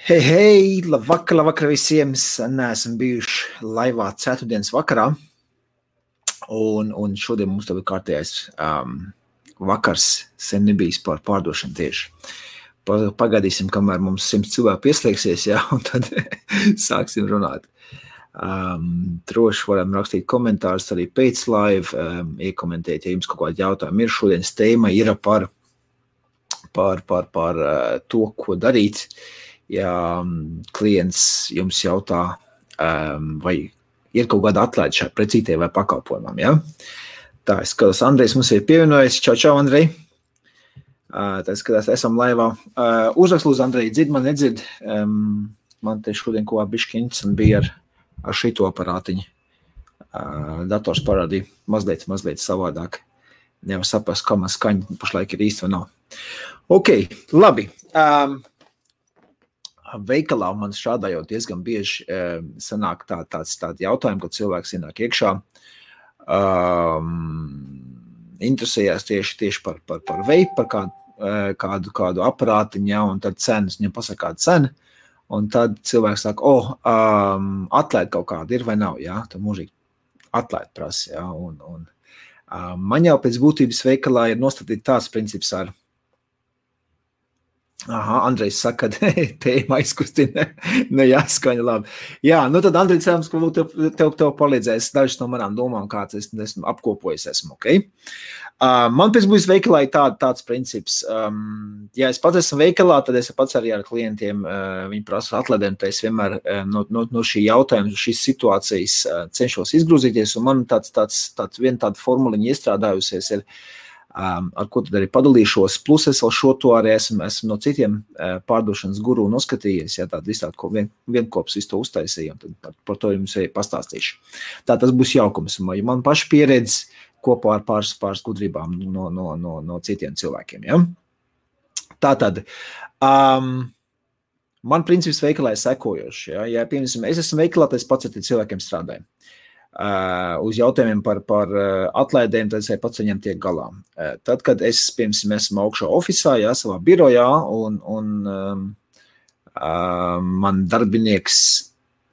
Hei, labvakar visiem. Neesam bijuši laivā ceturtdienas vakarā. Un šodien mums tev ir kārtējais vakars, sen nebijis par pārdošanu tieši. Pagaidīsim, kamēr mums 100 cilvēku pieslēgsies, jā, un tad sāksim runāt. Droši varam rakstīt komentārus arī pēc live, iekomentēt, ja jums kaut kādi jautājumi ir. Šodienas tēma ir par to, ko darīt. Ja klients jums jautā, vai ir kaut kāda atlaide šai precītē vai pakalpojumam, ja? Tā, es skatos, Andrejs mums ir pievienojies. Čau, Andrej. Tā skatās, esam laivā. Uzrakst lūdzu, Andrej, dzird man nedzird. Man te šodien ko bišķiņas un bija ar šito aparātiņu. Dators parādīja mazliet savādāk. Nevar saprast, kā man skaņa pašlaik ir īsti vai nav. Ok, labi. Veikalā man strādājot diezgan bieži sanāk tādi jautājumi, kad cilvēks ienāk iekšā, interesējās tieši par veipu, par kādu aparātiņu, ja, un tad cenas, viņam pasaka kāda cena, un tad cilvēks saka, atlaid kaut kāda ir vai nav, ja, tad mūžīgi atlaid prasa, ja, un man jau pēc būtības veikalā ir nostatīt tāds princips ar Andrejs saka, ka tēma aizkustina, jāskaņa labi. Jā, nu tad Andrejs cerams, ka tev palīdzēs dažas no manām domām, kāds es esmu apkopojis, ok? Man pēc būs veikalā ir tāds princips. Ja es pats esmu veikalā, tad es pats arī ar klientiem, viņi prasa atlaidēm, tad es vienmēr no šī jautājuma, šīs situācijas cenšos izgrūzīties, un man viena tāda formuliņa iestrādājusies ir, ar ko tad arī padalīšos, plus es vēl šo to arī esmu no citiem pārdošanas guru noskatījies, ja tādu visu tādu vienkops visu to uztaisīju, un tad par to jums arī pastāstīšu. Tā tas būs jaukums, jo man paši pieredze kopā ar pāris gudrībām no citiem cilvēkiem, ja? Tātad, man princips veikalā ir sekojoši, ja piemēram, es esmu veikalā, tad es pats ar cilvēkiem strādāju. Uz jautājumiem par atlaidēm, tad es pats viņam tiek galā. Tad, kad es, piemēram, esmu augšā ofisā, jā, savā birojā, un man darbinieks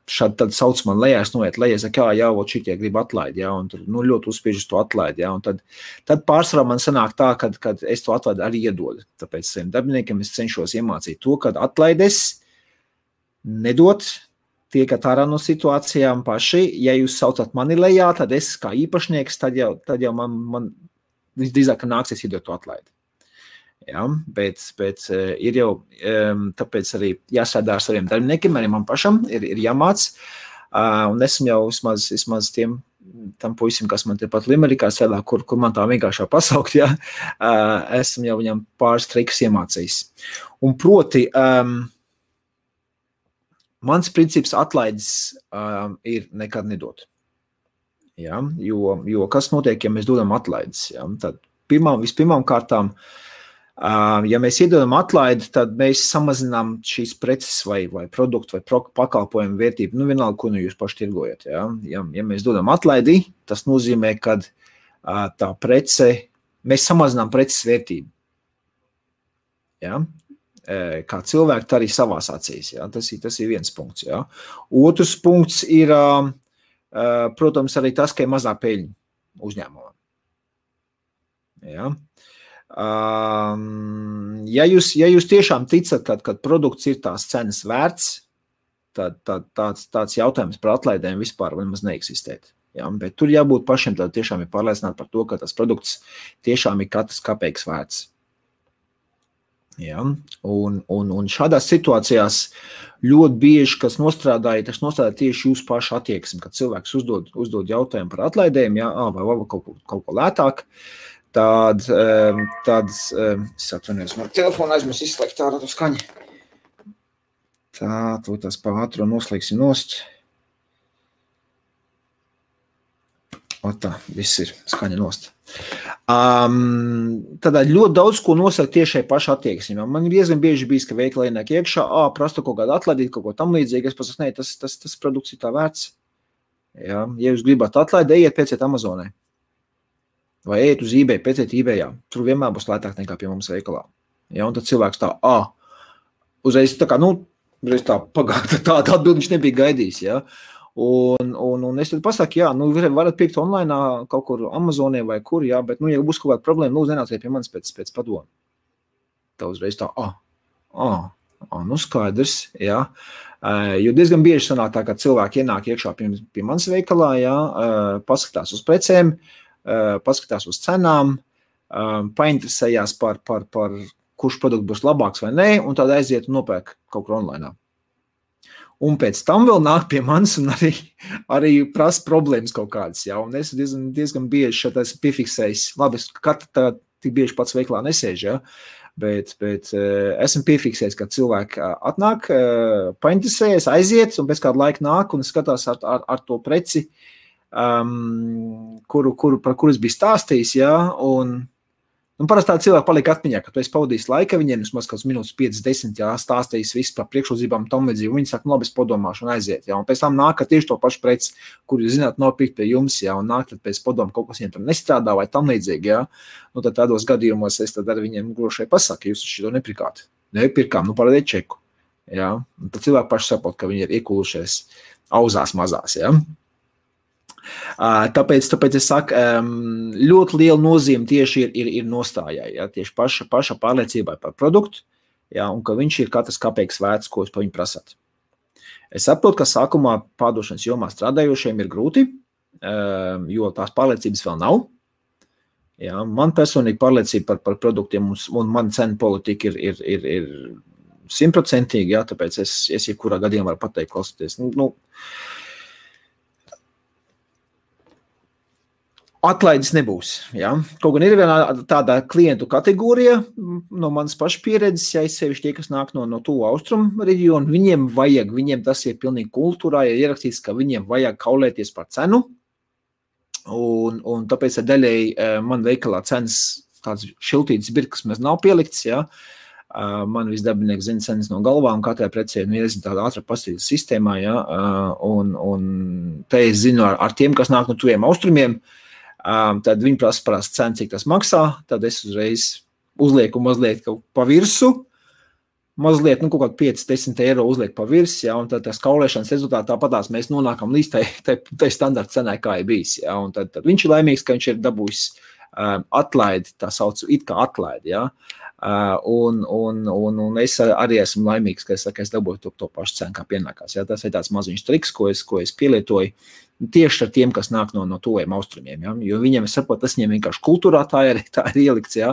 tad sauc man lejā, es noiet lejā, saka, jā, šitie grib atlaidi, jā, un tur ļoti uzspiež to atlaidi, jā, un tad pārsvarā man sanāk tā, kad es to atlaidi arī iedodu. Tāpēc saviem darbiniekiem es cenšos iemācīt to, kad atlaides nedot, tiekat ārā no situācijām paši, ja jūs saucat mani lejā, tad es kā īpašnieks, tad jau man visdrīzāk nāksies iedot to atlaidi. Ja, bet ir jau, tāpēc arī jāstrādā ar saviem darbiniekiem, arī man pašam ir jāmāc, un esmu jau vismaz tam puisim, kas man tepat Limerikā strādā, kur man tā vienkāršā pasaukt, ja, esmu jau viņam pāris trikus iemācījis. Un proti, mans princips atlaides ir nekad nedot. Ja? Jo kas notiek, ja mēs dodam atlaides? Ja? Tad vispirmām kārtām, ja mēs iedodam atlaidi, tad mēs samazinām šīs preces vai produktu vai pakalpojumu vērtību. Nu, vienalga, ko jūs paši tirgojat. Ja? Ja mēs dodam atlaidi, tas nozīmē, ka tā prece, mēs samazinām preces vērtību. Ja? Kā cilvēki, tā arī savās acīs. Ja? Tas ir viens punkts. Ja? Otrs punkts ir, protams, arī tas, ka ir mazā peļņa uzņēmumam. Ja? Ja jūs tiešām ticat, kad produkts ir tās cenas vērts, tad tāds jautājums par atlaidēm vispār nemaz neeksistēt. Ja? Bet tur jābūt pašiem, tad tiešām ir pārliecināti par to, ka tas produkts tiešām ir katrs kapeiks vērts. Ja? Un šādās situācijās ļoti bieži, kas nostrādāja tieši jūsu pašu attieksmi, kad cilvēks uzdod jautājumu par atlaidēm, ja? Vai kaut ko lētāk, tad es atvainojos, man telefonu aizmirsu izslēgt ārā to skaņu. Tā, to tas pa ātro noslēgsim nost. Tā, viss ir skaņa nost. Tad ļoti daudz, ko nosaka tiešai paša attieksmi. Man diezgan bieži bijis, ka veikala ienāk iekšā, prasta kaut kādu atlaidīt, kaut ko tam līdzīgi, es pasaku, ne, tas produkts ir tā vērts. Ja jūs gribat atlaidi, ejiet pēciet Amazonē. Vai ejiet uz eBay, pēciet eBayā. Tur vienmēr būs lētāk nekā pie mums veikalā. Ja, un tad cilvēks tā, uzreiz tā kā, Tāda atbildi viņš nebija gaidījis, ja. Un es tad pasaku, jā, nu, varat pirkt online kaut kur Amazonē vai kur, jā, bet, nu, ja būs kaut kāda problēma, lūdzu, nenāciet pie manis pēc padomu. Tā uzreiz tā, nu, skaidrs, jā. Jo diezgan bieži sanāk tā, ka cilvēki ienāk iekšā pie manis veikalā, jā, paskatās uz precēm, paskatās uz cenām, painteresējās par kurš produkts būs labāks vai nē, un tad aiziet un nopērk kaut kur online. Un pēc tam vēl nāk pie manis un arī prasa problēmas kaut kādas, jā, un es diezgan bieži šeit esmu piefiksējis, labi, es tā tik bieži pats veiklā nesēžu, jā, bet esmu piefiksējis, ka cilvēki atnāk, painteresējas, aiziet, un pēc kāda laika nāk un skatās ar to preci, par kuru es biju stāstījis, jā, un parasti tādi cilvēki paliek atmiņā, ka tu esi pavadījis laika viņiem, vismaz kāds minūtes 5-10, jā, stāstījis visu par priekšrocībām tam līdzīgi, un viņi saka, nu labi, es padomāšu un aiziet, jā, un pēc tam nāk tieši to pašu preci, kur jūs zināt, nav pirkt pie jums, jā, un nāk tad pēc padomu kaut kas viņiem tur nestrādā vai tam līdzīgi, jā, nu tad tādos gadījumos es tad ar viņiem gluži pasaku, jūs šito nepirkāt, nepirkām, nu parādiet čeku, jā, un tad cilvēki paši saprot, ka viņi ir iekulušies auzās mazās, jā. Tāpēc es saku, ļoti liela nozīme tieši ir nostājai, ja, tieši paša pārliecībai par produktu, ja, un ka viņš ir katrs kapeiks vērts, ko jūs pa viņu prasāt. Es saprotu, ka sākumā pārdošanas jomā strādājošiem ir grūti, jo tās pārliecības vēl nav. Ja, man personīgi pārliecība par produktiem un man cenu politika ir 100%, ja, tāpēc es jebkurā gadījumā varu pateikt, klausieties, Atlaides nebūs, ja. Kaut gan ir viena tāda klientu kategorija no manas paša pieredzes, ja es sevišķi tie, kas nāk no tuvu austrumu reģionu, viņiem tas ir pilnīgi kultūrā, ir ierakstīts, ka viņiem vajag kaulēties par cenu, un tāpēc daļēji man veikalā cenas tāds šiltītas birkas mēs nav pielikts, ja. Man visdabinieki zina cenas no galvām, katrai precē ir tāda ātra pastīļas sistēmā, ja, un te es zinu ar tiem, kas nāk no tuviem austrumiem, tad viņi prasa cenu, cik tas maksā, tad es uzreiz uzlieku mazliet pa virsu, mazliet, kaut kādu 5-10 eiro uzlieku pa virsu, ja, un tad tas kaulēšanas rezultātā tāpatās mēs nonākam līdz tai standarta cenai, kā ir bijis, ja, un tad viņš ir laimīgs, ka viņš ir dabūjis atlaidi, tā saucu it kā atlaidi, ja, un es arī esmu laimīgs, ka es dabūju to pašu cenu, kā pienākās, ja, tas ir tāds maziņš triks, ko es pielietoju, tieši ar tiem, kas nāk no tuviem austrumiem, ja? Jo viņiem, es saprotu, tas viņiem vienkārši kultūrā tā ir ielikts, ja?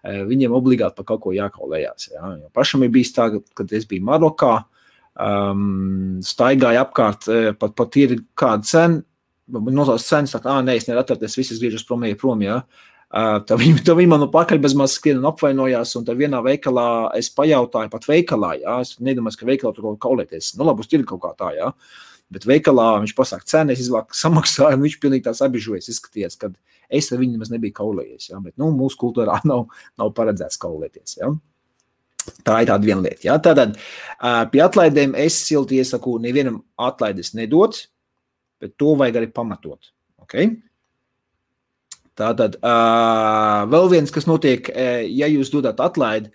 Viņiem obligāti par kaut ko jākaulējās. Ja? Jo pašam ir bijis tā, kad es biju Marokā, staigāju apkārt, pat ir kāda cena, nosauc cenas, saka, nē, es nevaru atcerēties, visi griežas prom, ja? Tad viņi man no pakaļ bez maz skrien un apvainojās, un tad vienā veikalā es pajautāju, pat veikalā, ja? Es nedomāju, ka veikalā tur kaulēties, labi, uz tirgu kaut kā tā, ja? Bet veikalā viņš pasaka cenu, es izvāku samaksāju, un viņš pilnīgi tās abižojies izskaties, kad es ar viņu nemaz nebiju kaulējies, ja? Bet, mūsu kultūrā nav paredzēts kaulēties, ja? Tā ir tāda viena lieta, ja? Tātad pie atlaidēm es silti iesaku nevienam atlaides nedot, bet to vajag arī pamatot, ok? Tātad vēl viens, kas notiek, ja jūs dodat atlaidi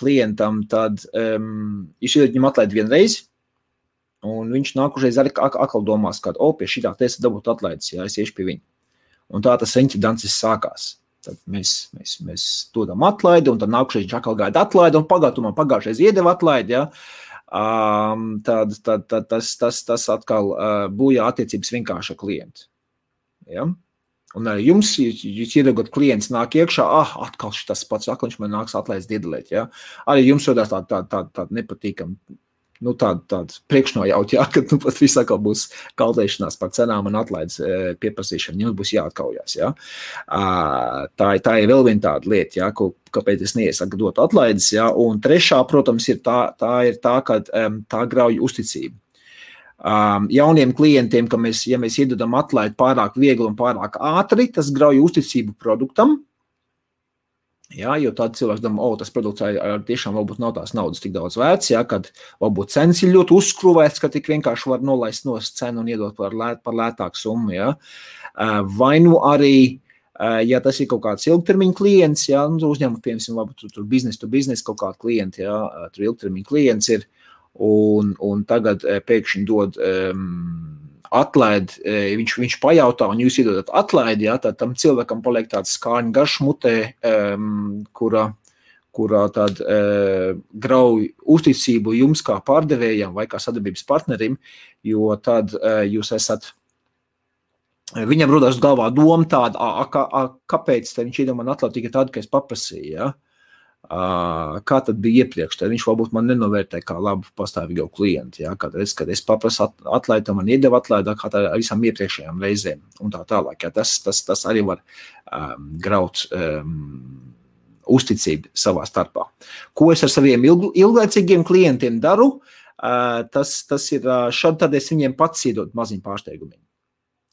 klientam, tad jūs iedot viņam atlaidi vienreiz, un viņš nākušais arī atkal domās, ka, pie šitā te es dabūt atlaides, ja es iešu pie viņa. Un tā tas eņķi dancis sākās. Tad mēs dodam atlaidi, un tad nākušais viņš atkal gaida atlaidi, un pagājušais iedeva atlaidi, ja. Tad tas atkal bojā attiecības vienkārši ar klientu. Ja. Un arī jums, jūs iedodat klients nāk iekšā, atkal šitas pats, atkal viņš man nāks atlaides diedalēt, ja. Arī jums rodās tāda nepatīkama, tāda priekšnojaut, jā, ka pat viss atkal būs kaulēšanās par cenām un atlaides pieprasīšana, jums būs jāatkaujās, jā. Tā ir vēl viena tāda lieta, jā, kāpēc es neiesaku dot atlaides, jā, un trešā, protams, ir tā, ka tā grauj uzticību. Jauniem klientiem, ka ja mēs iedodam atlaidi pārāk viegli un pārāk ātri, tas grauj uzticību produktam. Jā, jo tāda cilvēks domā, tas produkts tiešām varbūt nav tās naudas tik daudz vērts, jā, kad varbūt cenas ir ļoti uzskruvēts, ka tik vienkārši var nolaist no cenu un iedot par lētāku summu, jā. Vai nu arī, ja tas ir kaut kāds ilgtermiņa klients, jā, uzņēmums, piemēram, varbūt tur business to business kaut kāda klienta, jā, tur ilgtermiņa klients ir, un tagad pēkšņi dod atlaidi, viņš pajautā, un jūs iedodat atlaidi, jā, tad tam cilvēkam paliek tāds skārņu garš mutē, kurā tad grauj uzticību jums kā pārdevējam vai kā sadarbības partnerim, jo tad jūs esat, viņam rodās galvā doma tāda, kāpēc viņš iedomā atlaidi tikai tādu, ka es paprasīju, jā? Kā tad bija iepriekš, tad viņš varbūt man nenovērtē kā labu pastāvīgo klientu, ja? Kad es paprasu atlaidi, man iedeva atlaidi, kā tā visām iepriekšējām reizēm un tā tālāk. Ja? Tas arī var graut uzticību savā starpā. Ko es ar saviem ilglaicīgiem klientiem daru, tas ir šad tad es viņiem pats iedod maziņu pārsteigumiem.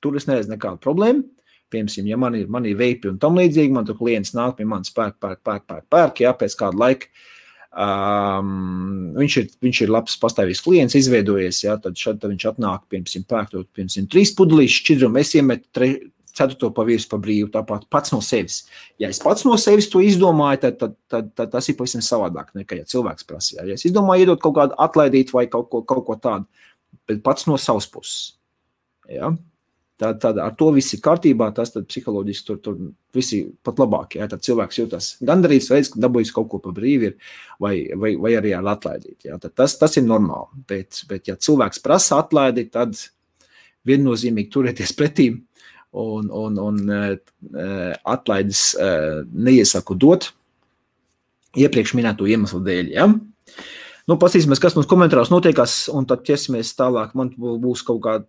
Tur es neredzu nekādu problēmu. Piemēram, ja man ir veipi un tam līdzīgi, man tur klients nāk pie manis pērk, jā, pēc kāda laika. Viņš ir labs pastāvīgs klients, izveidojies, jā, tad viņš atnāk, piemēram, pērk 3 pudelīšu šķidrumu, es iemetu 4. pa virsmu pa brīvu, tāpat pats no sevis. Ja es pats no sevis to izdomāju, tad tas ir pavisam savādāk, nekā ja cilvēks prasa. Ja es izdomāju iedot kaut kādu atlaidīt vai kaut ko tādu, bet pats no savas puses. Ja? Tad ar to viss ir kārtībā, tas tad psiholoģiski tur visi pat labāk, ja, tad cilvēks jūtas gandarīts, redz, ka dabūjis kaut ko pa brīvi ir, vai arī ar atlaidīt, ja, tad tas ir normāli, bet ja cilvēks prasa atlaidi, tad viennozīmīgi turēties pretīm un atlaides neiesaku dot iepriekš minēto iemeslu dēļ, ja. Nu, pasīsimies, kas mums komentāros notiekās, un tad ķersimies tālāk, man būs kaut kā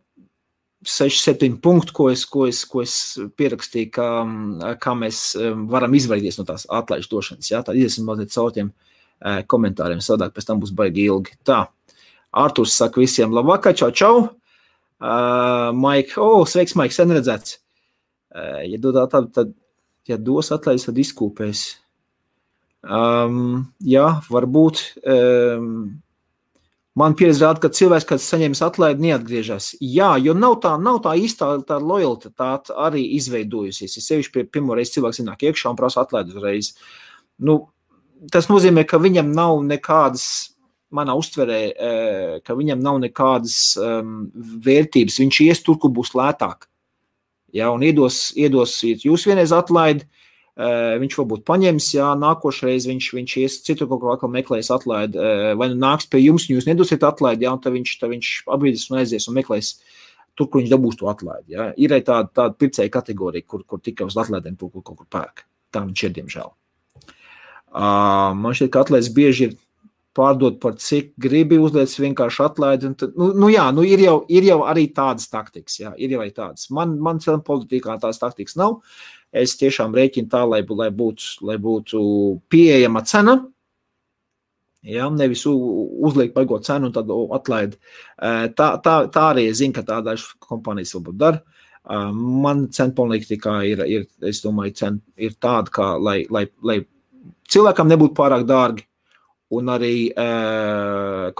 6-7 punkti, ko es pierakstīju, kā mēs varam izvairīties no tās atlaižu došanas. Ja? Tad iesim mazliet caur tiem komentāriem, sadāk, pēc tam būs baigi ilgi. Tā, Arturs saka visiem labvakar, čau. Maik, sveiks, Maik, sen redzēts. Ja dod tādu, tad, ja dos atlaižu, tad izkūpēs. Jā, varbūt... Man pieredze rāda, ka cilvēks, kad saņems atlaidi, neatgriežas. Jā, jo nav tā īstā tā lojalitāte arī izveidojusies. Ja sevišķi pirmo reizi cilvēks ienāk iekšā un prasa atlaidi uzreiz. Nu, tas nozīmē, ka viņam nav nekādas, manā uztverē, ka viņam nav nekādas vērtības. Viņš ies tur, kur būs lētāk. Ja, un iedosiet jūs vienreiz atlaidi, viņš varbūt paņems, jā, nākošreiz viņš ies citur kaut kā meklēs atlaidi, vai nu nāks pie jums, un jūs nedosiet atlaidi, jā, un tad viņš apbrīdis un aizies un meklēs tur, kur viņš dabūs to atlaidi, jā. Ir arī tāda pircēja kategorija, kur tikai uz atlaidiem kaut kur pērk. Tā viņš ir, diemžēl. Man šķiet, ka atlaides bieži ir pārdot par cik gribi, uzliec vienkārši atlaidi, un tad, ir jau arī tādas taktikas, jā, ir jau arī tādas. Man politikā tādas taktikas nav. Es tiešām rēķinu tā, lai būtu pieejama cena, ja, nevis uzliek baigot cenu un tad atlaidi. Tā arī es zinu, ka tā dažas kompānijas varbūt dara. Man cena politikā ir, es domāju, cena ir tāda, kā, lai cilvēkam nebūtu pārāk dārgi, un arī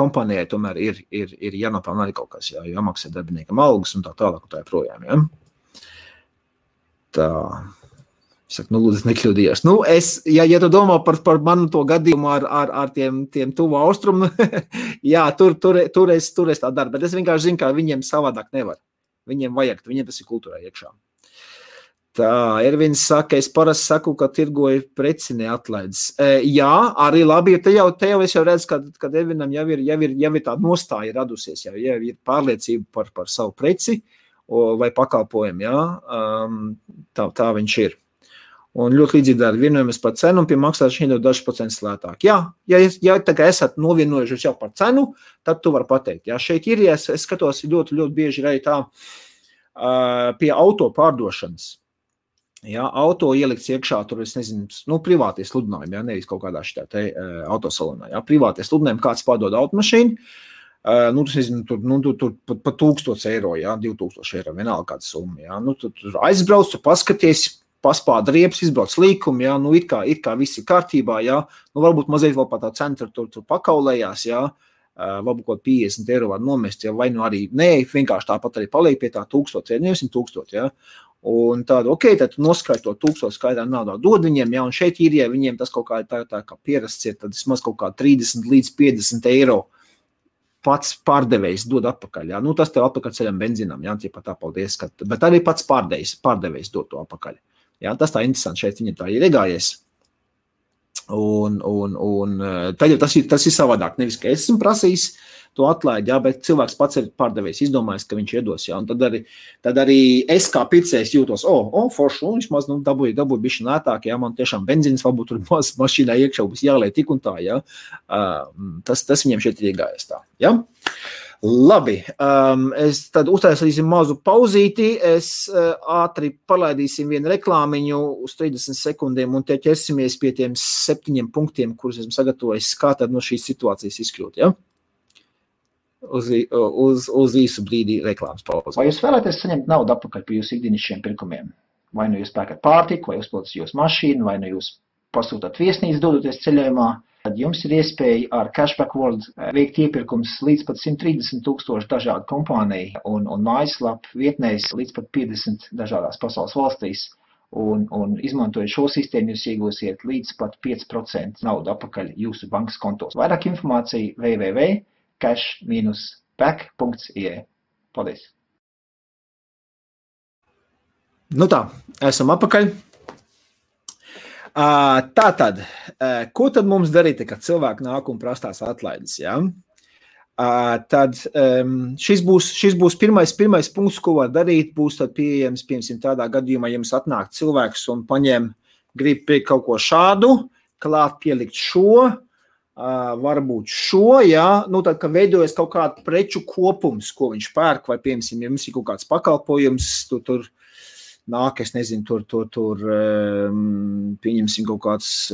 kompānijai tomēr ir jānopelna arī kaut kas, jāmaksā darbiniekam algas un tā tālāk un tā projām, ja. Tā... Saku, lūdzu, nekļūdījos. Ja tu domā par manu to gadījumu ar tiem tuvu austrumu, jā, tur es tā daru, bet es vienkārši zinu, ka viņiem savādāk nevar. Viņiem vajag, viņiem tas ir kultūrā iekšā. Tā, Ervins saka, es parasti saku, ka tirgoju preci neatlaides. Jā, arī labi, te jau es jau redzu, ka Ervinam jau ir tā nostāja radusies, jau ir pārliecība par savu preci vai pakalpojumu, jā, tā viņš ir. Un ļoti līdzīgi dara vienojamies par cenu un pie maksāšanas iedod dažs procents lētāk. Jā, ja tagad esat novienojušies jau par cenu, tad tu vari pateikt. Jā, šeit ir, ja es skatos ļoti, ļoti bieži arī tā pie auto pārdošanas. Jā, auto ielikts iekšā, tur es nezinu, privātie sludinājumi, jā, nevis kaut kādā šitā te autosalonā. Jā, privātie sludinājumi, kāds pārdod automašīnu, tas nezinu, tur pa 1000 eiro, jā, 2000 eiro, vienalga kāda summa, jā. Tur aizbrauc, tu paskaties, paspāda riepas, izbrauc līkumi, jā, it kā viss ir kārtībā, jā, varbūt mazliet vēl pat tā centra tur pakaulējās, jā, varbūt kaut 50 eiro var nomest, jā, vai arī, vienkārši tāpat arī paliek pie tā 1000, nevis 1000, jā, un tādu, tad tu noskaidro to 1000 skaidrā naudā dod viņiem, jā, un šeit ir, ja viņiem tas kaut kā tā kā pierasts ir, tad vismaz kaut kā 30 līdz 50 eiro pats pārdevējs dod atpakaļ. Jā. Nu, tas tev atpakaļ ceļam benzīnam, jā, tie pat tā, paldies, bet arī pats pārdevējs dod to atpakaļ. Jā, tas tā interesanti, šeit viņam tā ir iegājies. Un tad jau tas ir savādāk, nevis, ka es esmu prasījis to atlaidi, jā, bet cilvēks pats ir pārdevējs, izdomājis, ka viņš iedos, jā, un tad arī es kā pircējs jūtos, forši, un vismaz, nu, dabūju bišķi lētāk, jā, man tiešām benzīns varbūt tur mašīnā iekšā būs jāliek tik un tā, jā, tas viņiem šeit ir iegājies tā, jā. Labi, es tad uztaisīsim mazu pauzīti, es ātri palaidīsim vienu reklāmiņu uz 30 sekundēm un te ķersimies pie tiem 7 punktiem, kurus esmu sagatavojis, kā tad no šīs situācijas izkļūt, ja? Uz īsu brīdi reklāmas pauzi. Vai jūs vēlaties saņemt naudu atpakaļ par jūsu ikdienišķiem pirkumiem? Vai nu jūs pērkat pārtiku, vai uzpildat jūsu mašīnu, vai nu jūs pasūtat viesnīcu dodoties ceļojumā, tad jums ir iespēja ar Cashback World veikt iepirkums līdz pat 130,000 dažādu kompāniju un mājaslapu vietnēs līdz pat 50 dažādās pasaules valstīs. Un izmantojot šo sistēmu, jūs iegūsiet līdz pat 5% naudu atpakaļ jūsu bankas kontos. Vairāk informācija www.cash-back.ie. Paldies! Nu tā, esam atpakaļ. Tātad, ko tad mums darīt, kad cilvēki nāk un prastās atlaides, ja? Tad šis būs pirmais punkts, ko var darīt, būs tad pieejams, piemēram, tādā gadījumā, ja jums atnāk cilvēks un grib pirkt kaut ko šādu, klāt pielikt šo, varbūt šo, ja, nu tad, kad veidojas kaut kāda preču kopums, ko viņš pērk, vai, piemēram, ja jums ir kaut kāds pakalpojums, tur nāk, es nezinu, tur pieņemsim kaut kāds,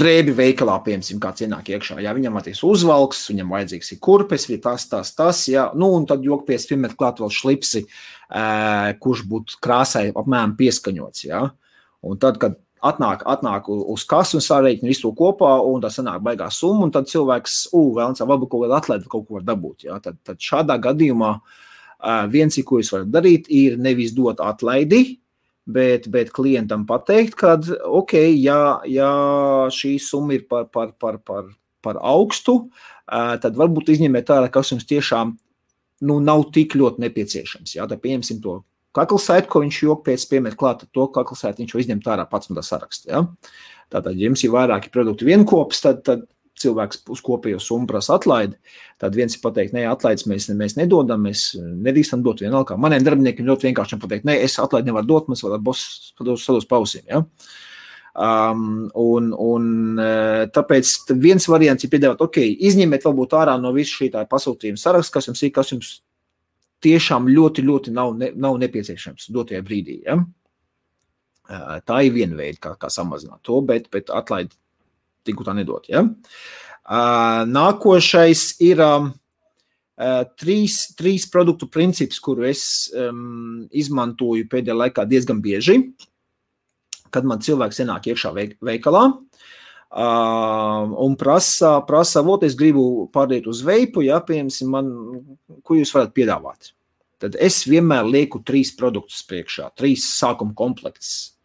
drēbi veikalā, piemēram, kāds ienāk iekšā, jā, viņam atīs uzvalks, viņam vajadzīgs ir kurpes, vai tas, jā, nu, un tad jokpies piemet klāt vēl šlipsi, kurš būtu krāsai apmēram pieskaņots, jā, un tad, kad atnāk uz kasu un sārēķina visu to kopā, un tā sanāk baigā summa, un tad cilvēks, vēlams, varbūt kaut kādu atlaidi kaut ko var dabūt. Ja? Tad šādā gadījumā viens, ko jūs varat darīt, ir nevis dot atlaidi, bet klientam pateikt, kad, ja šī summa ir par augstu, tad varbūt izņemiet ārā, kas jums tiešām nav tik ļoti nepieciešams. Ja? Tad pieņemsim to kaklasaitu, ko viņš jokpiec piemet klāt, to kaklasaitu viņš jau izņemt ārā pats no tā saraksta. Ja? Tātad, ja jums ir vairāki produkti vienkops, tad cilvēks uz kopējo summu prasa atlaidi, tad viens ir pateikt, nē, atlaides mēs nedodam, mēs nedrīkstam dot vienalga. Maniem darbiniekiem ļoti vienkārši pateikt, nē, es atlaidi nevaru dot, mums vēl boss sados pausīm. Ja? Tāpēc viens variants ir piedāvāt, izņemiet varbūt ārā no visu šī tā pasūtījuma saraksta, kas jums tiešām ļoti, ļoti nav nepieciešams dotajā brīdī. Ja? Tā ir viena veida, kā samazināt to, bet atlaidi tiku tā nedot. Ja? Nākošais ir trīs produktu princips, kuru es izmantoju pēdējā laikā diezgan bieži, kad man cilvēks ienāk iekšā veikalā, un prasa, es gribu pārdēt uz veipu, ja, piemēram, ko jūs varat piedāvāt. Tad es vienmēr lieku 3 produktus priekšā, 3 sākuma komplekts.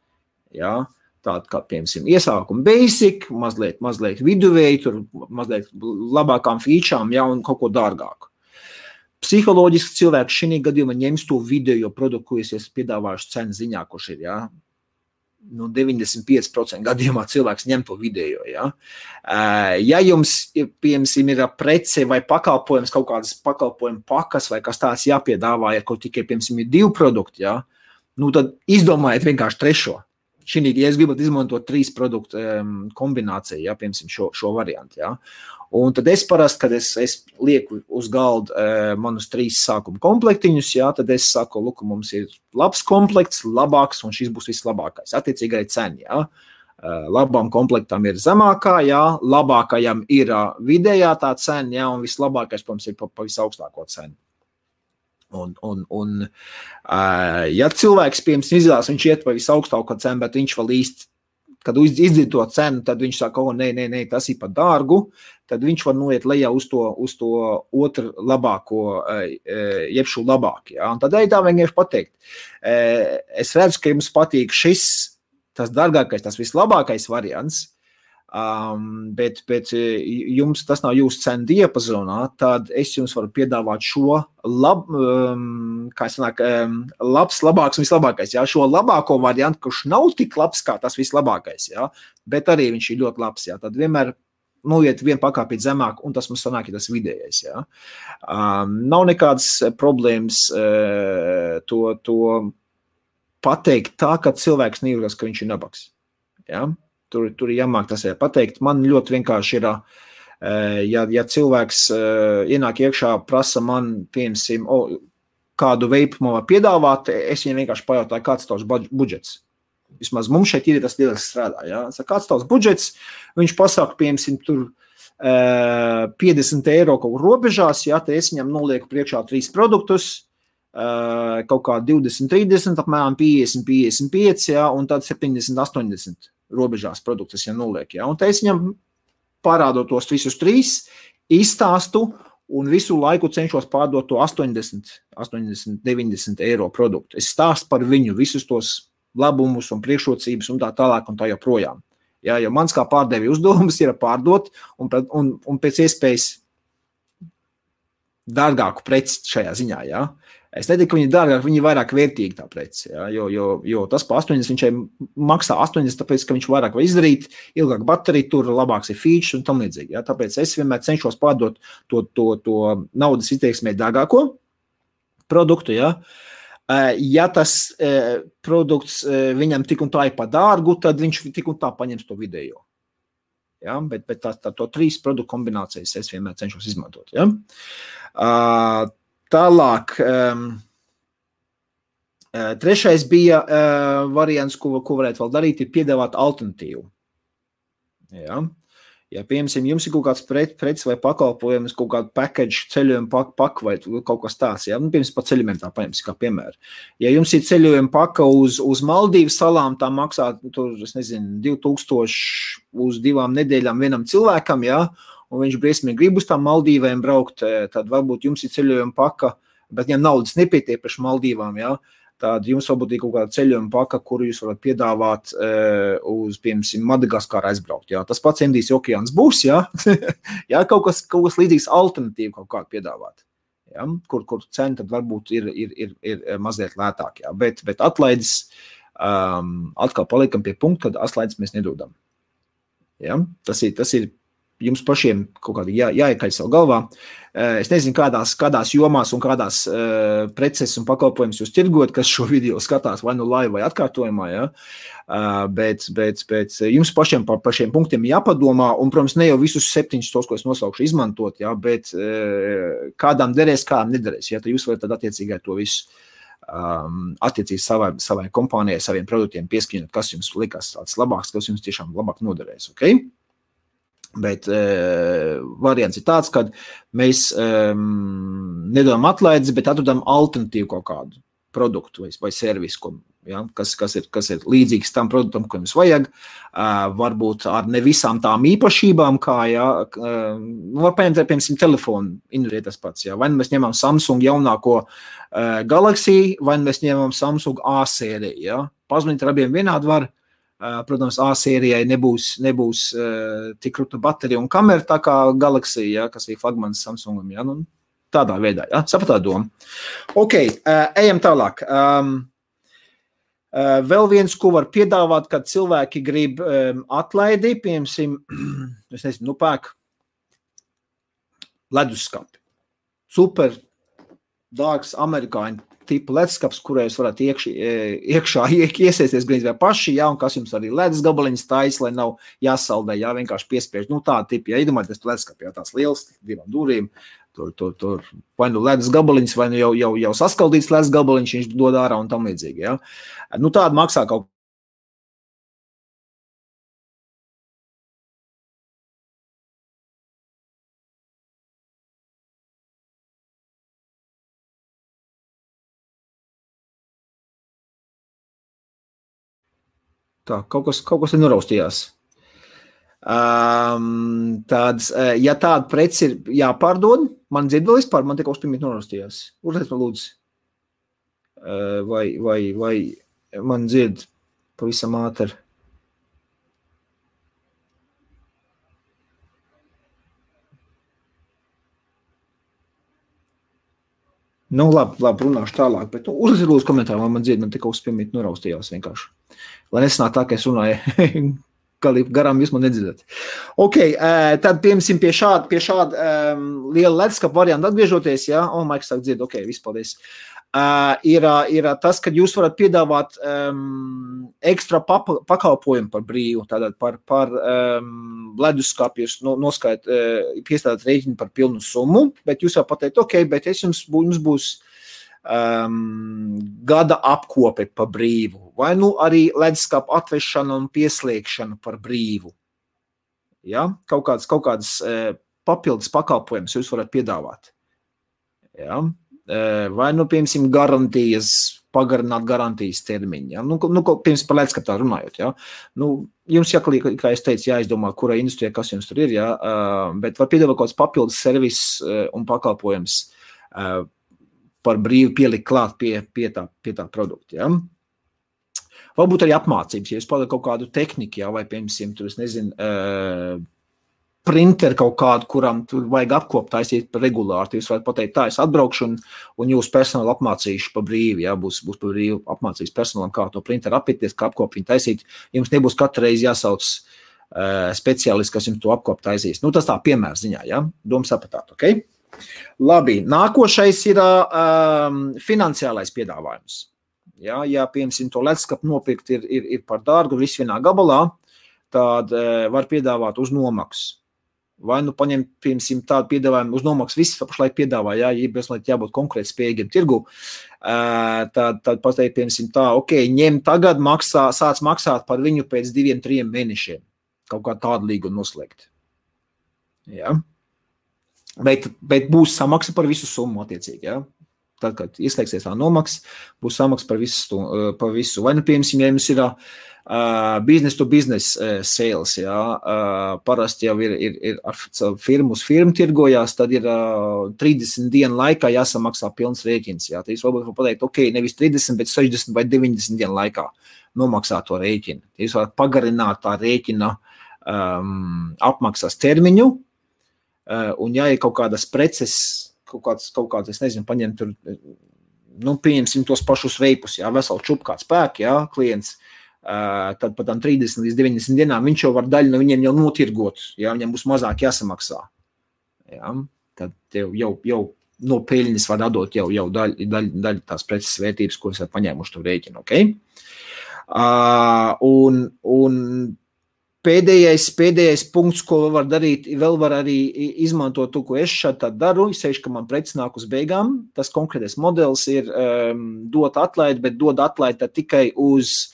Ja, tāda kā, piemēram, iesākuma basic, mazliet viduvēji, tur mazliet labākām featurām, ja, un kaut ko dārgāku. Psiholoģiski cilvēks šī gadījumā ņems to video produktu, ko es esmu piedāvājuši cenu ziņā, kurš ir, ja, 95% gadījumā cilvēks ņem to video. Ja, ja jums, piemēram, ir prece vai pakalpojums, kaut kādas pakalpojuma pakas vai kas tāds jāpiedāvā, ja kaut tikai, piemēram, ir 2 produkti, ja, nu tad izdomājiet vienkārši 3. Ja es gribat izmantot 3 produktu kombināciju, ja, piemēram, šo variantu. Ja. Un tad es parasti, kad es lieku uz galda manus 3 sākuma komplektiņus, ja, tad es saku, lūk, mums ir labs komplekts, labāks, un šis būs vislabākais. Attiecīgi arī cena. Ja. Labām komplektam ir zemākā, ja, labākajam ir vidējā tā cena, ja, un vislabākais, protams, ir pa visaugstāko cenu. Ja cilvēks, piemēram, izvēlas, viņš iet pa visaugstāko cenu, bet viņš vēl īsti, kad izdzird to cenu, tad viņš saka, nē, tas ir par dārgu, tad viņš var noiet lejā uz to otru labāko, jeb šo labāku. Ja? Un tad arī tā vienkārši pateikt. Es redzu, ka jums patīk šis, tas dārgākais, tas vislabākais variants, Bet jums tas nav jūsu cenu diapazonā, tad es jums varu piedāvāt šo labāks un vislabākais. Jā, šo labāko variantu, kurš nav tik labs kā tas vislabākais, jā, bet arī viņš ir ļoti labs. Jā. Tad vienmēr noiet vienu pakāpīt zemāk, un tas mums sanāk, ja tas vidējais. Jā. Nav nekādas problēmas to pateikt tā, ka cilvēks nejūtas, ka viņš ir nabaks. Jā. Tur ir jāmāk tas pateikt. Man ļoti vienkārši ir, ja cilvēks ienāk iekšā, prasa man, piemēram, kādu veipu man var piedāvāt, es viņam vienkārši pajautāju, kāds tavs budžets. Vismaz mums šeit ir tas lieliski strādā. Ja? Kāds tavs budžets, viņš pasaka, piemēram, tur 50 eiro kaut kur robežās, ja? Tad es viņam nolieku priekšā 3 produktus, kaut kā 20, 30, apmēram 50, 55, ja? Un tad 70, 80 robežās produktus, ja noliek. Ja? Un tā es viņam parādot tos visus 3, izstāstu un visu laiku cenšos pārdot to 80, 90 eiro produktu. Es stāstu par viņu visus tos labumus un priekšrocības un tā tālāk un tā joprojām. Ja? Jo mans kā pārdevi uzdevums ir pārdot un pēc iespējas dārgāku preci šajā ziņā. Ja? Es neteiktu, ka viņi ir dārgāk, viņi ir vairāk vērtīgi tā preci, ja? jo tas pa 80 viņš maksā 80, tāpēc, ka viņš vairāk var izdarīt, ilgāk baterija tur, labāks ir features un tam līdzīgi. Ja? Tāpēc es vienmēr cenšos pārdot to naudas izteiksmē dārgāko produktu. Ja? Ja tas produkts viņam tik un tā ir pa dārgu, tad viņš tik un tā paņems to vidējo. Ja? Bet to 3 produktu kombinācijas es vienmēr cenšos izmantot. Ja? Tālāk, trešais bija variants, ko varētu vēl darīt, ir piedāvāt alternatīvu. Ja, piemēram, jums ir kaut kāds preces vai pakalpojums, kaut kādu package, ceļojumu paku vai kaut kas tāds, ja, piemēram, pa ceļojumiem tā paņemsim kā piemēru. Ja jums ir ceļojuma paka uz Maldīvu salām, tā maksā, tur, es nezinu, 2000 uz 2 nedēļām vienam cilvēkam, ja, un viņš briesmīgi grib uz tām Maldīvēm braukt, tad varbūt jums ir ceļojuma paka, bet viņam naudas nepietiek par Maldīvām, ja? Tad jums varbūt ir kaut kāda ceļojuma paka, kuru jūs varat piedāvāt uz, piemēram, Madagaskaru aizbraukt. Ja? Tas pats Indijas okeāns būs, ja? Ja? Kaut kas līdzīgs alternatīvu kaut kādu piedāvāt, ja? Kur cena tad varbūt ir mazliet lētāk, ja? Bet atlaides atkal palikam pie punkta, kad atlaides mēs nedodam. Ja? Tas ir jums pašiem kaut kādi jāiekaļ savu galvā. Es nezinu, kādās jomās un kādās preces un pakalpojumus jūs tirgot, kas šo video skatās vai nu live vai atkārtojumā, ja? Bet jums pašiem par šiem punktiem jāpadomā, un, protams, ne jau visus 7 tos, ko es nosaukšu, izmantot, ja? Bet kādām derēs, kādām nederēs, ja? Tad jūs varat tad attiecīgai to visu attiecīgi savai kompānijai, saviem produktiem pieskaņot, kas jums likās tāds labāks, kas jums tiešām labāk noderēs, ok? Bet variants ir tāds, ka mēs nedodam atlaides, bet atrodam alternatīvu kaut kādu produktu vai servisu, ja, kas ir līdzīgs tam produktam, ko jums vajag. Varbūt ar ne visām tām īpašībām, kā, ja, var paņemt, piemēram, telefonu, ir tas pats. Ja. Vai mēs ņemam Samsung jaunāko Galaxy, vai mēs ņemam Samsung A sēriju. Ja. Pazvanīt ar abiem vienādi var. Protams, A sērijai nebūs tik krūta baterija un kamera tā kā Galaxy, ja, kas ir flagmanis Samsungam. Ja, nu, tādā veidā, ja, sapratā doma. Ok, ejam tālāk. Vēl viens, ko var piedāvāt, kad cilvēki grib atlaidi, piemēram, es nezinu, pērk leduskapi. Super dārgs amerikāņu tipa leduskaps, kurā jūs varat iekšā iesēsties grīz vai paši, ja, un kas jums arī ledus gabaliņas tais, lai nav jāsaldē, ja, vienkārši piespiež, nu tāda tipa, ja iedomājieties tu leduskapi, ja tās liels, 2 durīm, tur vai nu ledus gabaliņas, vai nu jau saskaldīts ledus gabaliņš, viņš dod ārā un tam līdzīgi, ja. Nu tāda maksā kaut tā, kaut kas ir noraustījās. Tāds, ja tāda preci ir jāpārdod, man dzird vēl vispār, man tikai uzpīmīt noraustījās. Uzliet man lūdzu. Vai man dzird pavisam ātri. Nu, labi, runāšu tālāk, bet uzlūdzu komentāru, man dzird, man tik uzspiemīt noraustījās vienkārši. Lai nesanāk tā, ka es runāju, garām jūs man nedzirdēt. Ok, tad piemēram pie šāda liela leduskapa varianta atgriežoties, ja, Maiks sāk dzird, ok, viss paldies. Ir tas, ka jūs varat piedāvāt ekstra pakalpojumu par brīvu, tātad par leduskapu jūs piestādāt rēķinu par pilnu summu, bet jūs jau pateikt, ok, bet jums būs gada apkope par brīvu, vai nu arī leduskapu atvešana un pieslēgšana par brīvu. Ja? Kaut kādas papildus pakalpojumus jūs varat piedāvāt. Ja? Vai nu, piemēram, garantijas, pagarināt garantijas termiņu. Ja? Nu, piemēram, par leduskapā runājot. Ja? Nu, jums jāklīk, kā es teicu, jāizdomā, kura industrijā, kas jums tur ir, ja? Bet var piedāvāt kaut kāds papildus servis un pakalpojums par brīvu pielikt klāt pie tā produkta. Ja? Varbūt arī apmācības, ja jūs pārdat kaut kādu tehniku, ja? Vai, piemēram, tur, es nezinu, printeri kaut kādu, kuram tur vajag apkopt taisīt regulāri. Jūs varat pateikt, tā es atbraukšu un jūs personāli apmācīšu pa brīvi. Ja? Būs pa brīvi apmācīs personālam, kā to printeri apieties, kā apkop viņu taisīt. Jums nebūs katru reizi jāsauc speciālists, kas jums to apkop taisīs. Nu, tas tā piemēra ziņā, ja? Doma sapratāt, ok? Labi, nākošais ir finansiālais piedāvājums. Ja, piemēram, to leduskapu nopirkt ir par dārgu, viss vienā gabalā, tad var piedāvāt uz nomaksu. Vai nu paņemt, piemēram, tādu piedāvājumu uz nomaksu, viss pašlaik piedāvā, ja jābūt konkrēti spējīgiem tirgu, tad pateikt, piemēram, tā, ok, ņem tagad, sāc maksāt par viņu pēc 2-3 mēnešiem. Kaut kā tādu līgumu noslēgt. Ja? Bet būs samaksa par visu summu attiecīgi, ja? Tad, kad ieslēgsies tā nomaksa, būs samaksa par visu. Vai nu, piemēram, ja jums ir business to business sales, ja? Parasti jau ir firmu uz firmu tirgojās, tad ir 30 dienu laikā jāsamaksā pilns rēķins. Ja? Tad jūs varbūt pateikt, ok, nevis 30, bet 60 vai 90 dienu laikā nomaksā to rēķinu. Jūs varat pagarināt tā rēķina apmaksas termiņu, un ja ir kaut kādas preces, kaut kāds, es nezinu, paņem tur, nu, pieņemsim tos pašus veipus, jā, veselu čupu kāds pērk, jā, klients, tad pat 30 līdz 90 dienām viņš jau var daļu no viņiem jau notirgot, jā, viņam būs mazāk jāsamaksā, jā, tad tev jau no peļņas var atdot jau daļu tās preces vērtības, kuras ir paņēmuši to rēķinu, ok? Un pēdējais punkts, ko var darīt, vēl var arī izmantot to, ko es šādi daru, sevišķi, ka man preces nāk uz beigām. Tas konkrētais modelis ir dot atlaidi, bet dod atlaidi tikai uz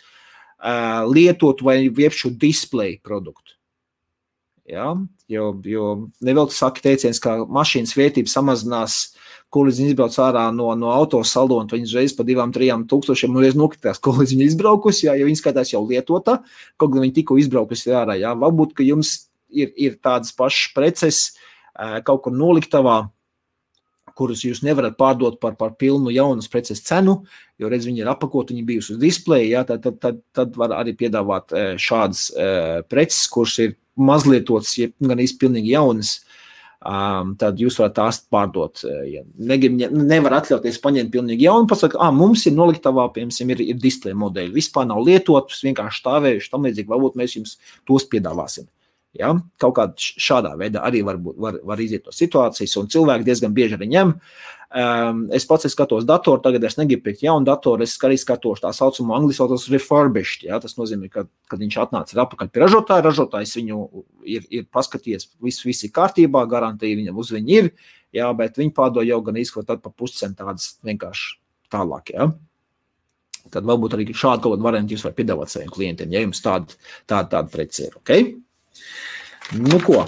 lietotu vai viepšu display produktu. Ja? Jo nevēl tu saki teiciens, ka mašīnas vērtība samazinās, ko līdz viņa izbrauc ārā no autosaldo, un viņas reiz pa 2-3 tūkstošiem reiz nokritās, ko līdz viņa izbraukusi, ja viņa skatās jau lietota, kaut gan viņa tikko izbraukusi ārā. Ja? Varbūt, ka jums ir tādas pašas preces kaut kur noliktavā, kurus jūs nevarat pārdot par pilnu jaunas preces cenu, jo redz, viņi ir apakot, viņi bijusi uz displeja, ja? Tad var arī piedāvāt šādas preces, kuras ir mazlietotas, ja gan īsti pilnīgi jaunas, tad jūs varat tās pārdot. Ja nevar atļauties paņemt pilnīgi jaunu, pasaka, mums ir noliktavā, piemēram, ir display modeļi, vispār nav lietotus, vienkārši stāvējuši, tam līdzīgi, varbūt mēs jums tos piedāvāsim. Ja? Kaut kādā šādā veidā arī var iziet no situācijas, un cilvēki diezgan bieži arī ņem. Es pats skatos datoru, tagad es negribu pirkt jaunu datoru, es arī skatos tā saucamo angliski saucos refurbished, ja? Tas nozīmē, ka, kad viņš atnāca atpakaļ pie ražotāja, ražotājs viņu ir paskatījies, viss ir kārtībā, garantija viņam uz viņu ir, ja? Bet viņi pārdod jau gan izskot tad pa puscent tādas vienkārši tālāk, ja? Tad varbūt arī šādu kaut kādu variantu jūs var piedāvāt saviem klientiem, ja jums tāda preci ir, ok? Nu ko?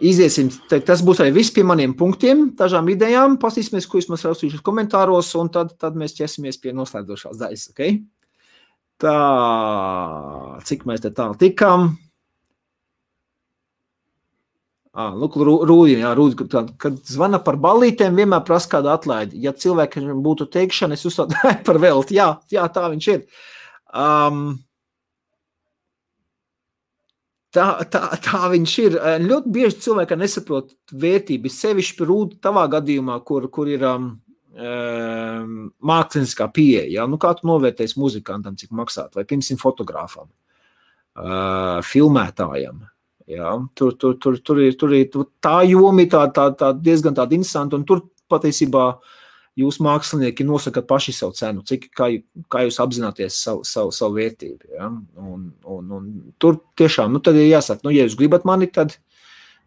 Iziesim, tas būs arī viss pie maniem punktiem, dažām idejām, pasīsimies, ko jūs mums raustījušas komentāros, un tad mēs ķesimies pie noslēdzošās daļas, ok? Tā, cik mēs te tālu tikām? Lūk, Rūdi, kad zvana par ballītēm, vienmēr prasa kādu atlaidi. Ja cilvēkam būtu teikšana, es uzstādu par velti, jā, tā viņš ir. Tā viņš ir. Ļoti bieži cilvēki nesaprot vērtību, sevišķi Rūdi tavā gadījumā, kur ir mākslinieckā pieeja, ja? Nu, kā tu novērtēsi muzikantam, cik maksāt, vai, piemēram, fotogrāfam, filmētājam, ja? Tur ir tā joma tā diezgan tāda interesanta, un tur patiesībā jūs mākslinieki nosakat paši savu cenu, kā jūs apzināties savu vērtību, ja? Un tur tiešām, tad ir jāsaka, ja jūs gribat mani, tad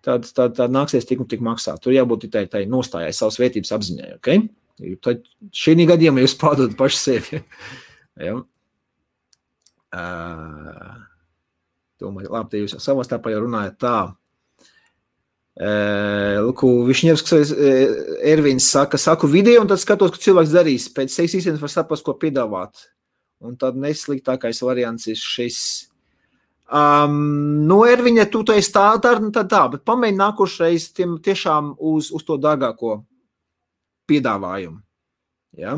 nāksies tik un tik maksāt. Tur jābūt tai nostājai savas vērtības apziņai, ok? Tad šī gadījumā jūs pārdodat paši sevi. Ja? Domāju, labi, te jūs savā starpā jau runājat tā. Višņevskis Ervins saku video, un tad skatos, ko cilvēks darīs. Pēc 6 īstenības var saprast, ko piedāvāt. Un tad nesliktākais variants ir šis. Erviņa, tu esi tā, bet pamēģini nākošreiz tiešām uz to dārgāko piedāvājumu. Ja?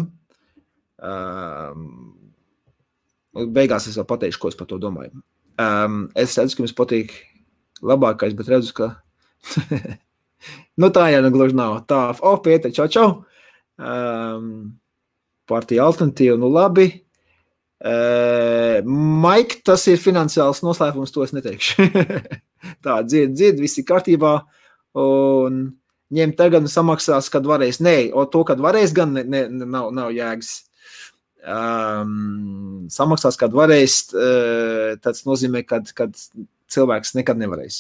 Beigās es vēl pateikšu, ko es par to domāju. Es redzu, ka jums patīk labākais, bet redzu, ka tā jau gluži nav. Tā, Pēter, čau. Partija alternatīva, labi. Maik, tas ir finansiāls noslēpums, to es neteikšu. Tā, dzird, viss ir kārtībā, un ņem tagad un samaksās, kad varēs. Nē, to, kad varēs, gan nav jēgas. Samaksās, kad varēs, tas nozīmē, kad cilvēks nekad nevarēs.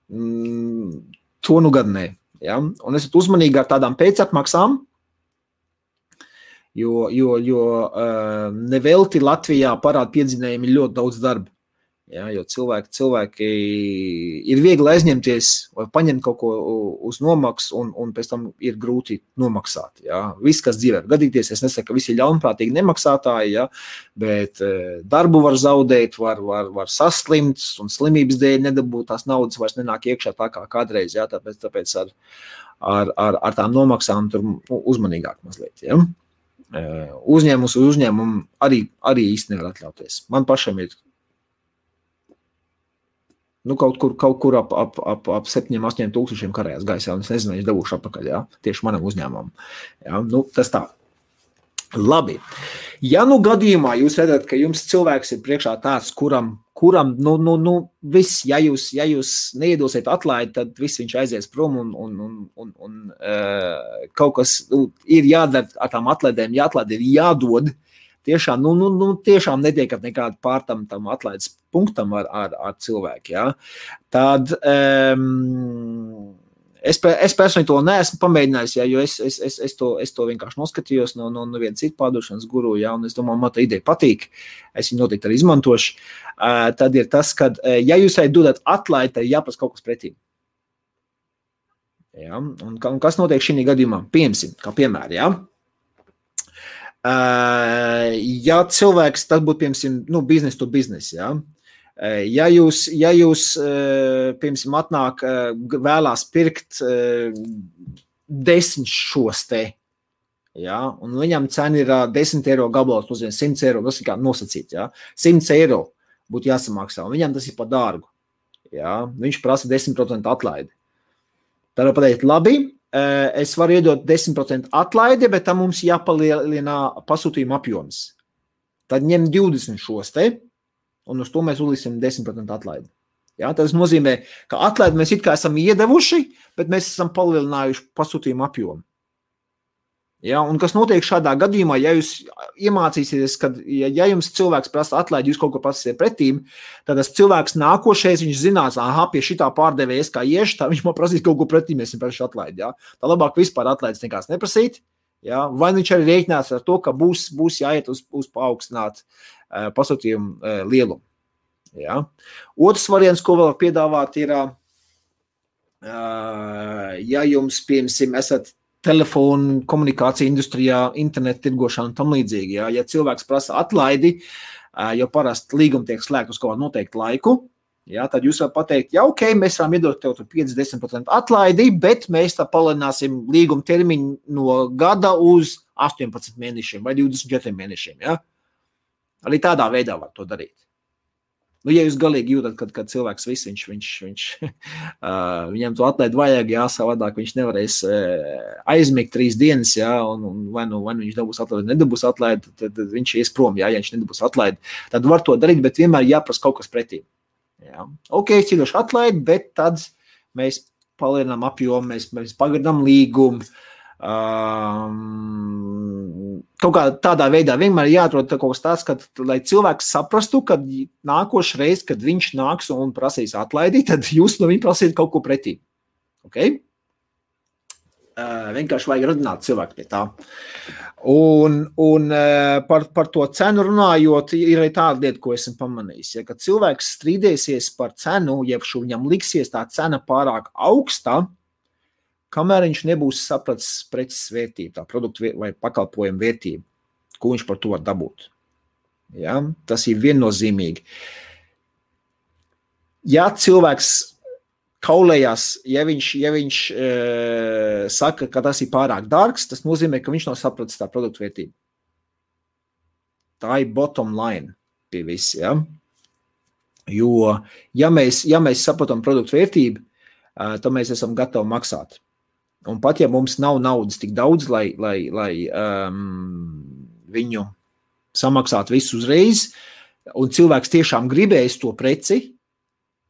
To gad nē. Ja? Un esat uzmanīgi ar tādām pēcatmaksām, jo nevelti Latvijā parāda piedzinējumi ļoti daudz darba. Ja, jo cilvēki ir viegli aizņemties vai paņemt kaut ko uz nomaksu un pēc tam ir grūti nomaksāt. Ja. Viss, kas dzīvē gadīties, es nesaku, ka visi ir ļaunprātīgi nemaksātāji, ja, bet darbu var zaudēt, var saslimt un slimības dēļ nedabūt tās naudas vairs nenāk iekšā tā kā kādreiz. Ja, tāpēc ar tām nomaksām tur uzmanīgāk mazliet. Ja. Uzņēmums uz uzņēmumu arī īsti nevar atļauties. Man pašam ir kaut kur ap 7-8 tūkstošiem karējās gaisā, un es nezinu, es dabūšu atpakaļ, ja, tieši manam uzņēmumam. Ja, tas tā. Labi. Ja gadījumā jūs redzat, ka jums cilvēks ir priekšā tāds, kuram viss, ja jūs neiedosiet atlaidi, tad viss viņš aizies prom un kaut kas ir jādara ar tām atlaidēm, jāatlaid ir jādod. Tiešām, tiešām netiekat nekādu pārtam tam atlaides punktam ar cilvēku, ja. Tad es personīgi to neesmu pamēģinājis, ja, jo es to vienkārši noskatījos no viena cita pārdošanas guru, ja, un es domāju, man tā ideja patīk, es viņu noteikti arī izmantošu. Tad ir tas, ka, ja jūs dodat atlaidi, tad jāprasa kaut kas pretī. Ja, un kas notiek šī gadījumā? Kā piemēram, ja. Ja cilvēks, tas būtu, piemēram, business to business, ja? Ja jūs piemēram, atnāk vēlās pirkt 10 šos te, ja? Un viņam cena ir 10 eiro gabalos, nozīmē 100 eiro, tas ir kā nosacīt, ja? 100 eiro būtu jāsamaksā, un viņam tas ir par dārgu, ja? Viņš prasa 10% atlaidi. Tad var pateikt, labi, es varu iedot 10% atlaidi, bet tam mums jāpalielina pasūtījuma apjoms. Tad ņem 20 šos te, un uz to mēs uzliksim 10% atlaidi. Ja, tas nozīmē, ka atlaidi mēs it kā esam iedevuši, bet mēs esam palielinājuši pasūtījumu apjomu. Ja, un kas notiek šādā gadījumā, ja jūs iemācīsieties, ka ja jums cilvēks prasa atlaidi, jūs kaut ko prasīsiet pretīm, tad tas cilvēks nākošais, viņš zinās, pie šitā pārdevējas kā ieši, tā viņš man prasīs kaut ko pretīm, mēs viņam praši atlaidi. Ja. Tā labāk vispār atlaides nekās neprasīt, ja. Vai viņš arī rēķinās ar to, ka būs jāiet uz paaugstināt pasūtījumu lielumu. Ja. Otrs variants, ko vēl piedāvāt, ir, ja jums, piemēram, esat telefonu, komunikāciju industrijā, internetu tirgošana un tam līdzīgi. Ja cilvēks prasa atlaidi, jo parasti līgumi tiek slēgt uz kaut kādu noteiktu laiku, ja, tad jūs varat pateikt, ja ok, mēs varam iedot tev 50% atlaidi, bet mēs tā palielināsim līguma termiņu no gada uz 18 mēnešiem vai 24 mēnešiem. Ja. Arī tādā veidā var to darīt. Nu, ja jūs galīgi jūtat, kad cilvēks viss, viņam to atlaid vajag, savādāk viņš nevarēs aizmigt 3 dienas, un vai viņš dabūs atlaid, nedabūs atlaid, tad viņš ies prom, ja viņš nedabūs atlaid. Tad var to darīt, bet vienmēr jāprasa kaut kas pretī. Ok, cīdoši atlaid, bet tad mēs palielinām apjomu, mēs pagarinām līgumu. Kaut kā tādā veidā vienmēr jāatrod kaut kas tāds, lai cilvēks saprastu, kad nākošu reizi, kad viņš nāks un prasīs atlaidi, tad jūs no viņa prasīt kaut ko pretī. Okay? Vienkārši vajag radināt cilvēku pie tā. Un par to cenu runājot, ir arī tāda lieta, ko esmu pamanījis. Ja, kad cilvēks strīdēsies par cenu, ja viņam liksies tā cena pārāk augsta, kamēr viņš nebūs sapratis preces vērtību, tā produktu vai pakalpojumu vērtību, ko viņš par to var dabūt. Ja? Tas ir viennozīmīgi. Ja cilvēks kaulējās, ja viņš saka, ka tas ir pārāk dārgs, tas nozīmē, ka viņš nav sapratis tā produktu vērtību. Tā ir bottom line pie visi. Ja? Jo, ja mēs saprotam produktu vērtību, tad mēs esam gatavi maksāt. Un pat ja mums nav naudas tik daudz, lai viņu samaksāt visu uzreiz, un cilvēks tiešām gribēs to preci,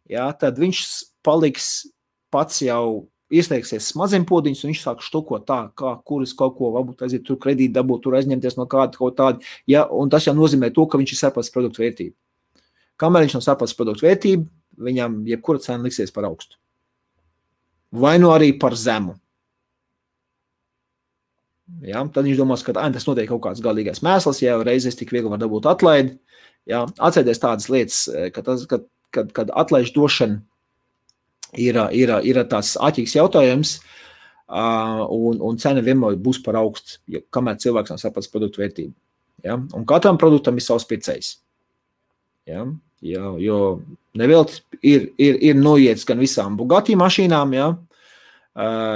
tad viņš paliks pats jau ieslēgsies smadzenpodiņus, un viņš sāk štukot tā, kuras kaut ko varbūt aiziet tur kredīti dabūt, tur aizņemties no kāda kaut tāda, un tas jau nozīmē to, ka viņš ir sapratis produktu vērtību. Kamēr viņš nav sapratis produktu vērtību, viņam jebkura cena liksies par augstu. Vai nu arī par zemu. Ja, tad viņš domās, ka tas notiek kaut kāds galīgais mēsls, ja reizes tik viegli var dabūt atlaidi. Ja, atcerieties tādas lietas, kad atlaižu došana ir tāds āķīgs jautājums, un cena vienmēr būs par augstu, kamēr cilvēks nav sapratis produktu vērtību. Ja, un katram produktam ir savs pircējs. Ja, jo nevēlt ir noiets gan visām Bugatti mašīnām, ja,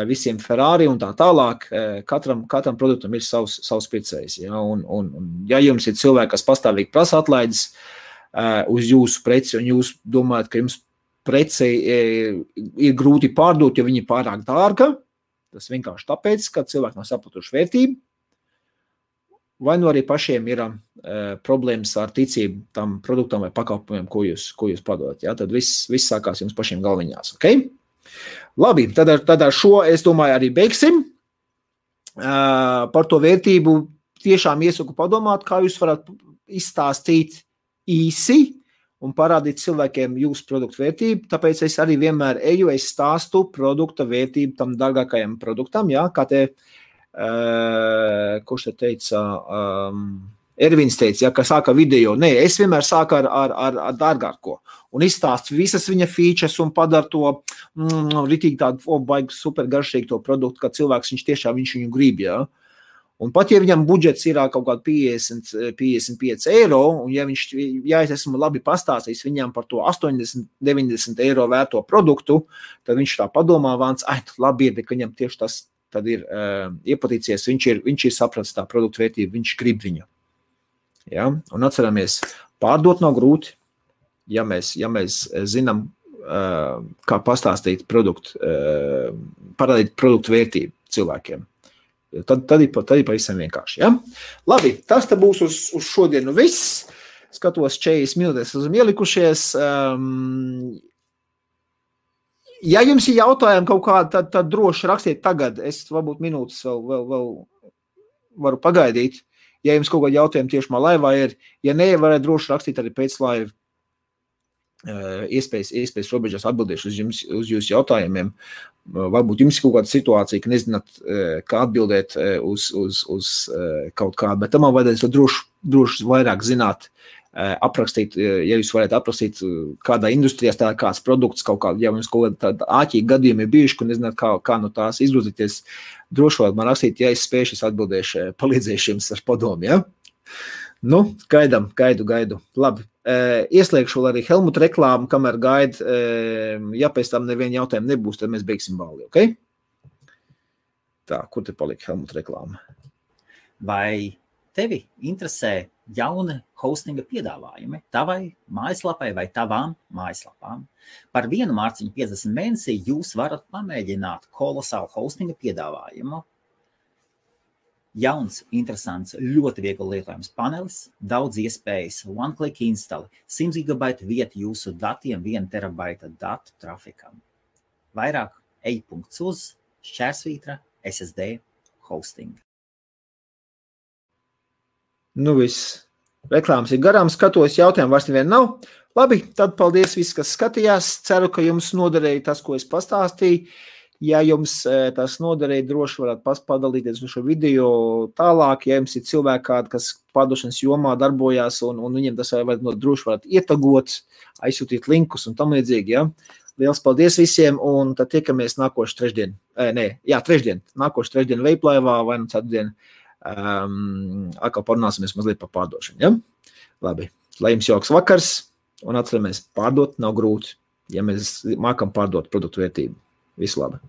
visiem Ferrari un tā tālāk, katram produktam ir savs pircējs. Ja? Un ja jums ir cilvēki, kas pastāvīgi prasa atlaides uz jūsu preci, un jūs domājat, ka jums preci ir grūti pārdot, jo viņi ir pārāk dārga, tas vienkārši tāpēc, ka cilvēki nav sapratuši vērtību, vai nu arī pašiem ir problēmas ar ticību tam produktam vai pakalpojumiem, ko jūs padodat. Ja? Tad viss sākās jums pašiem galviņās. Okay? Labi, tad ar šo, es domāju, arī beigsim. Par to vērtību tiešām iesaku padomāt, kā jūs varat izstāstīt īsi un parādīt cilvēkiem jūsu produktu vērtību. Tāpēc es arī vienmēr es stāstu produkta vērtību tam dārgākajam produktam, ja? Kā kurš te teica, Ervins teica, ja, ka sāka video. Nē, es vienmēr sāku ar dārgāko un izstāstu visas viņa features un padara to ritīgi tādu baigi super garšīgi to produktu, ka cilvēks viņš viņu grib, ja. Un pat ja viņam budžets ir kaut kādi 50-55 eiro, un ja es esmu labi pastāstījis viņam par to 80-90 eiro vērto produktu, tad viņš tā padomā vāns, labi ir, bet viņam tieši tas tad ir iepatīcies, viņš ir sapratis tā produktu vērtību, viņš grib viņu. Ja? Un atceramies, pārdot nav grūti, ja mēs zinām, kā pastāstīt parādīt produktu vērtību cilvēkiem. Tad ir pavisam vienkārši. Ja? Labi, tas te būs uz šodienu viss. Skatos 40 minūtes esam ielikušies. Ja jums ir jautājumi kaut kādi, tad droši rakstiet tagad. Es varbūt minūtes vēl varu pagaidīt. Ja jums kaut kādi jautājumi tiešām laivā ir, ja ne, varētu droši rakstīt arī pēc laiva. Iespējas robežās atbildēšu uz jūsu jautājumiem. Varbūt jums ir kaut kāda situācija, ka nezināt, kā atbildēt uz kaut kādu, bet tam vajadzēs droši vairāk zināt, aprakstīt, ja jūs varētu aprakstīt kādā industrijā tā kāds produkts, ja jums kaut kāda āķīgi gadījumi ir bijuši, ka nezināt, kā no tās izgrozīties, droši varat man rakstīt, ja es spēšu, es atbildēšu, palīdzēšu jums ar padomu, ja? Nu, gaidu. Labi. Ieslēgšu vēl arī Helmuta reklāmu, kamēr gaida, ja pēc tam neviena jautājuma nebūs, tad mēs beigsim balli, ok? Tā, kur te palika Helmuta reklāma? Vai tevi interesē jauni hostinga piedāvājumi tavai mājaslapai vai tavām mājaslapām, par 1 mārciņu 50 mēnesī jūs varat pamēģināt kolosālu hostinga piedāvājumu. Jauns, interesants, ļoti viegli lietojams panelis, daudz iespējas, one-click install, 100 GB vieta jūsu datiem, 1 terabaita datu trafikam. Vairāk ej.uz/SSD hosting. Nu viss. Reklāmas ir garām, skatos, jautājumu vairs nevien nav. Labi, tad paldies visi, kas skatījās. Ceru, ka jums noderēja tas, ko es pastāstīju. Ja jums tas noderēja, droši varat padalīties uz šo video tālāk. Ja jums ir cilvēki kādi, kas pārdošanas jomā darbojās un viņiem tas droši varat ietagot, aizsūtīt linkus un tam līdzīgi. Ja? Liels paldies visiem un tad tiekamies nākošu trešdien. Nākošu trešdien Veiplaivā vai nu ceturtdien. Atkal parunāsimies mazliet par pārdošanu. Ja? Labi, lai jums jauks vakars un atceramies, pārdot nav grūti, ja mēs mākam pārdot produktu vērtību. Visu labi!